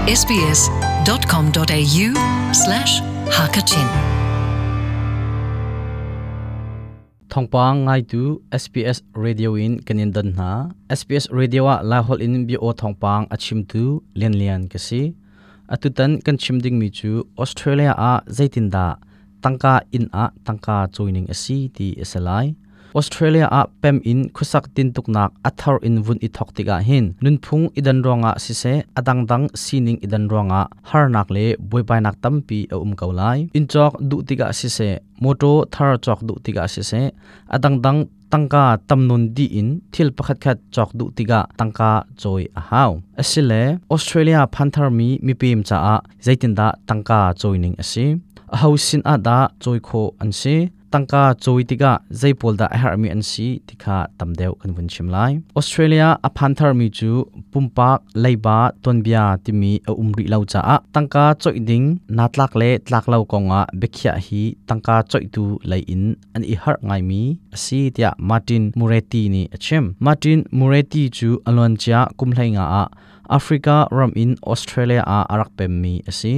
sbs.com.au slash hakachin Thongpang ngaitu SBS Radio in kanin don hna. SBS Radio ah Lahol in bi o thongpang a chimtu Lian Lian ka si. Atutan kan chim ding mi chu Australia ah zeitinda tangka in ah tangka joining asi ti asalai. Australia ah pem in khusak tin tuknak athar in vun i thok tikah hin nunphung idan ronga sise adang dang sining idan ronga harnak le buaibainak tampi a um ko lai in chok du tikah sise moto thar chok du tikah sise adang dang tangka tamnun di in thil pakhat khat chok du tikah tangka choi a hau asile Australia phanthar mi mipim cha a zeitinda tangka choining asi a ho sin a da choi kho an si tangka choi tika zeipol da a hermi an si tikha tamdeu kan vun chim lai Australia a phanthar mi chu pumpak leiba tonbia timi a umri lo cha a tangka choi ding natlak le tlak lo konga bekhia hi tangka choi tu lei in an i har ngai mi asi tia Martin Muretti ni achim Martin Muretti chu alon cha kumhlai nga a Africa ram in Australia a arak pem mi asi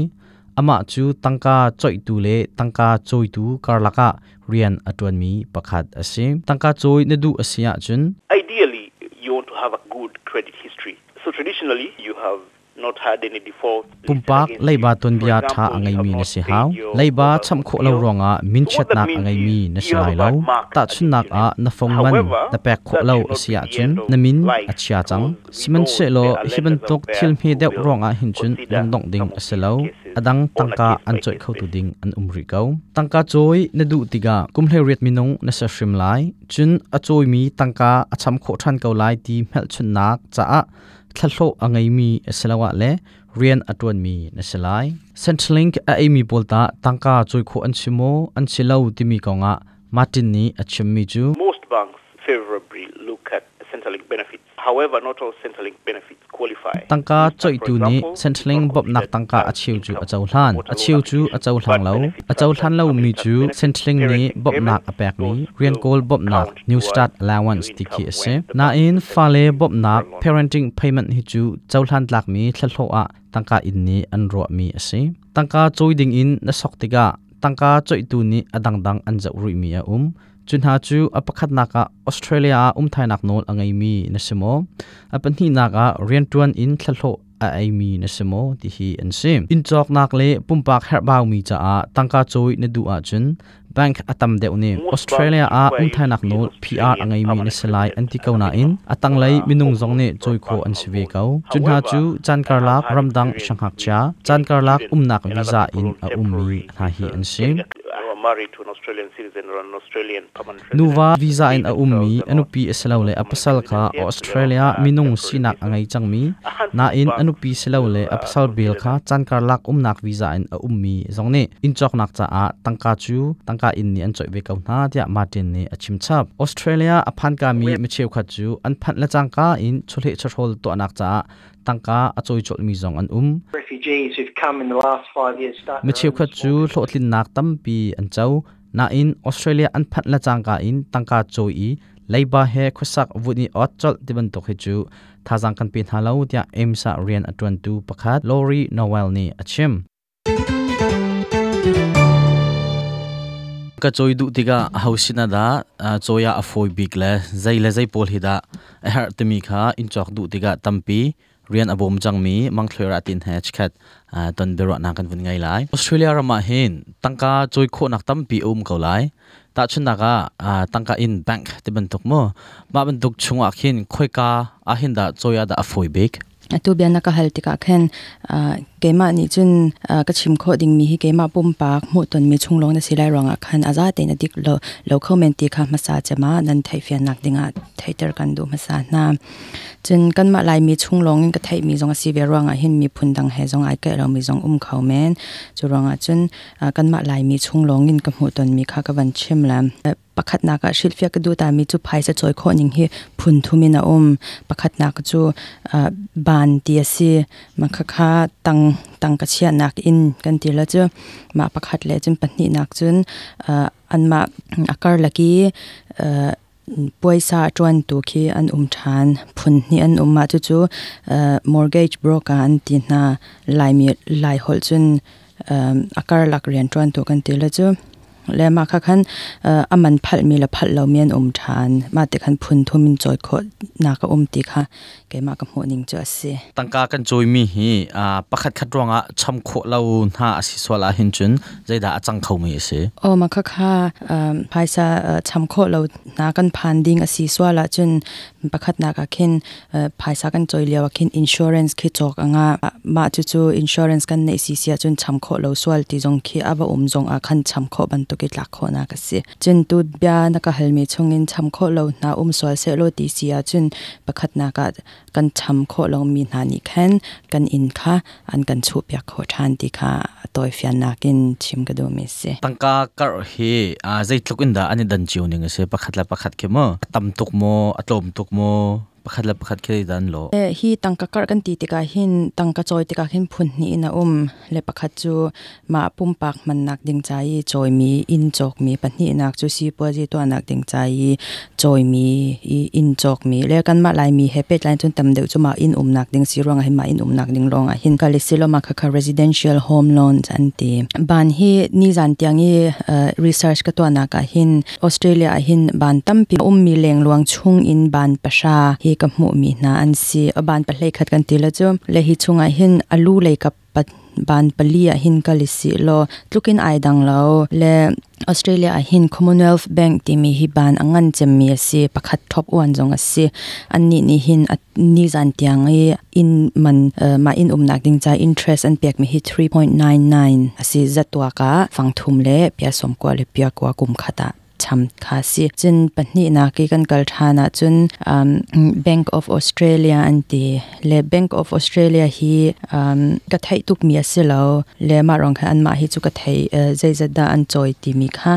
ama chu tangka choi tu le tangka choi tu karlaka rian atuan mi pakhat ase tangka choi na du asia chun Ideally, you want to have a good credit history. So traditionally, you have not had any default. listed pumpak against leiba you. ton For bia tha example, angai you have mi na not si paid hau your leiba mobile cham phone kho lo bill. ronga min So what chet that nak means angai mi is na you si have lai a lo bad mark ta chun against nak your a name. na phong man However, na pek kho that lo should not be asia the chun end of na min life achia chang because we siman know se lo there are hiban lenders out tok there thil hme who deuh will ronga hin chun consider lungdong ding some of these asilo cases adang on a tangka an choi case-by-case kho tu basis. ding an umri ko tangka choi na du tiga kumhle riat minung na sa hrim lai chun a choi mi tangka acham kho than ko lai ti mel chun nak cha a thlalho angai mi asalawa le rian atuan mi na selai Centrelink a amy polta tangka choi kho an chimo an chilo timi konga Martin ni achim mi chu Most banks favorably look at Centrelink benefits. However, not all Centrelink benefits qualify. tangka New Start, choi for tu ni example, is Centrelink not bob nak considered tangka as achiu chu income achaw for hlan motor loan achiu chu application, achaw but hlang lo benefits achaw such as hlan lo family mi tax chu benefits, Centrelink ni parenting bob nak payments, apek mi those rian will kol bob nak count new towards start allowance your ti khi income ase when the na bank in assesses fale you bob for nak a loan. parenting payment hi chu chaw hlan tlak mi thlalho a tangka in ni an ro mi ase tangka choi ding in na sok tiga tangka choi tu ni adang dang an zau rui mi a chun ha chu a pakhat naka Australia a umthai nak nol angai mi na simo a panhi naka rian tuan in thlalho a ai mi na simo ti hi an sim in chok nak le pumpak herbaw mi cha a tangka choi na du a chun bank atam deuh ni Most Australia banks a require you umthai to nak be an nol PR Australian angai mi na permanent selai resident an ti as ko a na in minimum atang for lai a minung home zong ne loan or choi kho an personal sive loan. ko chun ha However, chu chan I kar have lak had ramdang experience shanghak with cha chan getting kar lak students umnak and other visa people in on a ummi temporary hna hi visas an sim getting a, who are married to an Australian citizen or an Australian permanent resident. nuwa visa They in a ummi themselves are not anupi asilo le permanent apasal kha residents yet, so they're on Australia minung temporary sinak visas. angai changmi A handful na of in banks anupi silo le will apasal bel consider kha that. chan kar lak umnak visa in a ummi zong ne in chok nak cha a tangka chu tangka in ni an choi ve ko na tia Martin ni achim chap Australia aphan ka mi micheu kha chu an phan la changka in chole chhol to nak cha tangka achoi chol mi zong an Refugees who've come in the last 5 years start mi their cheu own kha small chu businesses. hlotlin nak tampi an chau na in Australia an phat la changka in tangka choi leiba he khusak vuni ot chol tiban tok hi chu thajang kan pin halo tia emsa rian atwan tu pakhat Lori Noel ni achim ka choi du tiga hausina da choya afoi big le zai le zai pol hi da a her timi kha in chok du tiga tampi rian abom changmi mangthlera tin he chkhat ton bero na kan vun ngai lai Australia rama hin tangka choi kho nak tampi ko lai ta chun naka tangka in bank te ban tok mo ma ban tuk chunga khin khoika a hin da choya da afoi big atu bian na ka hal tika khen keima ni chun ka chim kho ding mi hi keima pum pak mu ton mi chunglong na silai ronga khan aza te na dik lo lo khomen ti kha masa chama nan thai fian nak dinga thaiter kan du masa na chun kan ma lai mi chunglong in ka thai mi zong si ve ronga hin mi phun dang he zong ai ka lo mi zong khau men chu ronga chun kan ma lai mi chunglong in ka mu ton mi kha ka van chim lam pakhat na ka shilfia ka du ta mi chu phaisa choi kho ning hi phun thumin a pakhat na ka chu ban ti ase ma kha kha tang tang ka chia nak in kan ti la chu ma pakhat le chun pahnih nak chun an ma akar laki Puaisa a ṭuantu khi an um ṭhan. Phun hnih an um. Mah cucu mortgage broker an ti hna. Laimi Laiholh cun a karlak rianṭuantu kan ti le cu. Le mah kha khan a man phalhmi le phalh lomi an um ṭhan. Mah ti khan phun thum in cawi khawhnak a um ti kha keimah ka hmuhning cu a si. Tangka kan cawimi hi pakhat khat ruangah cham khawh lo hna a si sual ahhin cun zeidah a cang khomi a si? Aw mah khakha phaisa cham khawh lo hna kan phan ding a si sual ahcun pakhatnak ah khin phaisa kan cawi lio ah khin insurance khi cawk a ngah. Mah cucu insurance kan neih si si ahcun cham khawh lo sual ti zong khi a va um zong ah khan cham khawh bantuk i tlak khawhnak a si. Cun tu bia na ka halmi chungin cham khawh lo hna um sual sehlaw ti si ahcun pakhatnak ah kan cham khawh lomi hna nih khan kan inn kha an kan chuhpiak khawh ṭhan ti kha a tawifiannak in chim ka duhmi a si. Tangka karh hi zeitluk in dah an i dan cio ning a si? Pakhat le pakhat khi maw? A tam tuk maw? A tlawm tuk maw? Pakhat le pakhat khi dan lo. Hi tangka karh kan ti tikah hin tangka cawi tikah hin phun hnih in a um. Le pakhat cu mah pumpak hmannak ding ca i cawimi inn cawkmi, pahnihnak cu sipuazi tuahnak ding ca i cawimi i inn cawkmi le kanmah Laimi he pehtlai cun tam deuh cu mah inn umnak ding si ruangah hin mah inn umnak ding lawngah hin kal i siloma khakha residential home loans an ti. Ban hi nizan tiang i research ka tuahnak ah hin Australia ah hin ban tampi ummi lengluang chung in ban 3 hi ka hmuhmi hna an si. Ban pahlei khat kan ti le cu le hi chungah hin alu lei kap ban 4 ah hin kal i si law tlukin ai dang lo le Australia ah hin Commonwealth Bank timi hi ban a ngan cemmi a si. Pakhat top uan zong a si. Annih nih hin nizan tiang i inn man mah inn umnak ding ca interest an pekmi hi 3.99 a si. Zatuak ah fangthum le pia 90 le pia 9 kum khat ah cham kha si. Cun pahnihnak i kan kal ṭhan ahcun Bank of Australia an ti le Bank of Australia hi ka theih tukmi a si lo le mah ruang khan anmah hi cu ka thei zeizat dah an cawi timi kha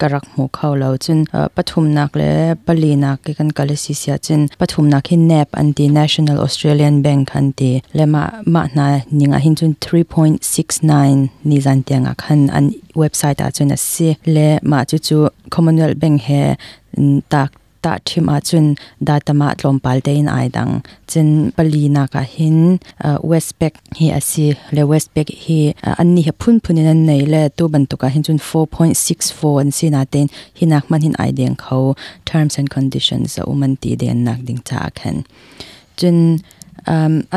ka rak hmu kho lo. Cun pathumnak le palinak i kan kal a si si ahcun pathumnak hi NAB an ti, National Australian Bank an ti le mah mah hna ning ah hin cun 3.69 nizan tiang ah khan an website ah cun a si le mah cucu Commonwealth Bank he tak tahṭhim ahcun data mah tlawmpal tein ai dang. Cun palinak ah hin Westpac hi a si le Westpac hi annih hi phunphun in an nei le tu bantuk ah hin cun 4.64 an si natein hinak hmanh hin ai deng kho, terms and conditions a um an ti den nak ding caah khan. Cun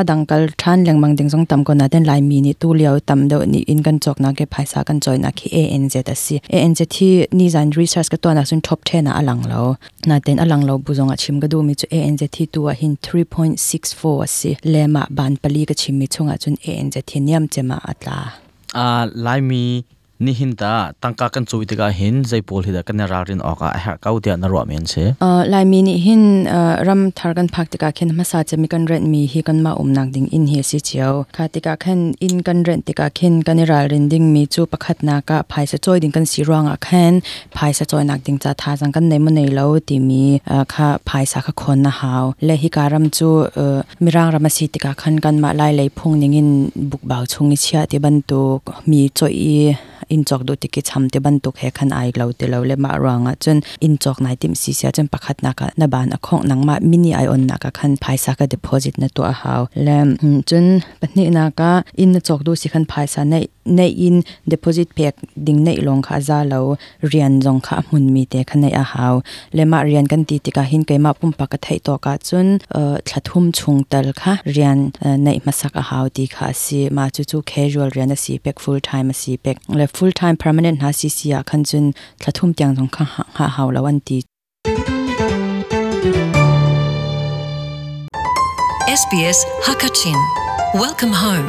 a dang kal ṭhan lengmang ding zong tam ko nain Laimi nih tulio tam deuh nih inn kan cawknak le phaisa kan cawinak hi ANZ a si. ANZ hi nizan research ka tuahnak cun top 10 ah a lang lo. Nain a lang lo bu zong ah chim ka duhmi cu ANZ hi tu ah hin 3.64 a si. Le mah ban 4 ka chimmi chungah cun ANZ hi niam cem ah a tla. Laimi Nihin ta tangka kan cawi tikah hin zei pawl hi dah kan i ralrin awk ah a herh ko tiah na ruah men si? Laimi nih hin ram thar kan phak tikah khin hmasa cem i kan rent mi hi kanmah umnak ding inn hi a si cio. Kha tikah khan inn kan rent tikah khin kan i ralrin ding mi cu pakhatnak ah phaisa cawi ding kan si ruangah khan phaisa cawinak ding ca thazaang kan nei maw nei lo timi kha phaisa kha khon na hau. Le hika ram cu Mirang ram a si tikah khan kanmah Lai lei phung ning in bukbau chung i chiah ti bantuk mi cawih i inn cawk duh tik i cham ti bantuk he khan ai lo ti lo le mah ruangah cun inn cawk nai timh si sia cun pakhatnak ah na ban a khongh nangmah mini ai onnak ah khan phaisa ka deposit na tuah a hau. Le cun pahnihnak ah inn na cawk duh si khan phaisa neih neih in deposit pek ding neih lawng kha a za lo, rian zong kha a hmunmi te kha neih a hau. Le mah rian kan ti tikah hin keimah pumpak ka theih tawk ahcun thla thum chung tal kha rian neih hmasak a hau ti kha a si. Mah cucu casual rian a si pek, full time a si pek. Le full time permanent hna si si ah khan cun thla thum tiang zong kha hngah hau lo an ti. SBS Hakachin. Welcome home.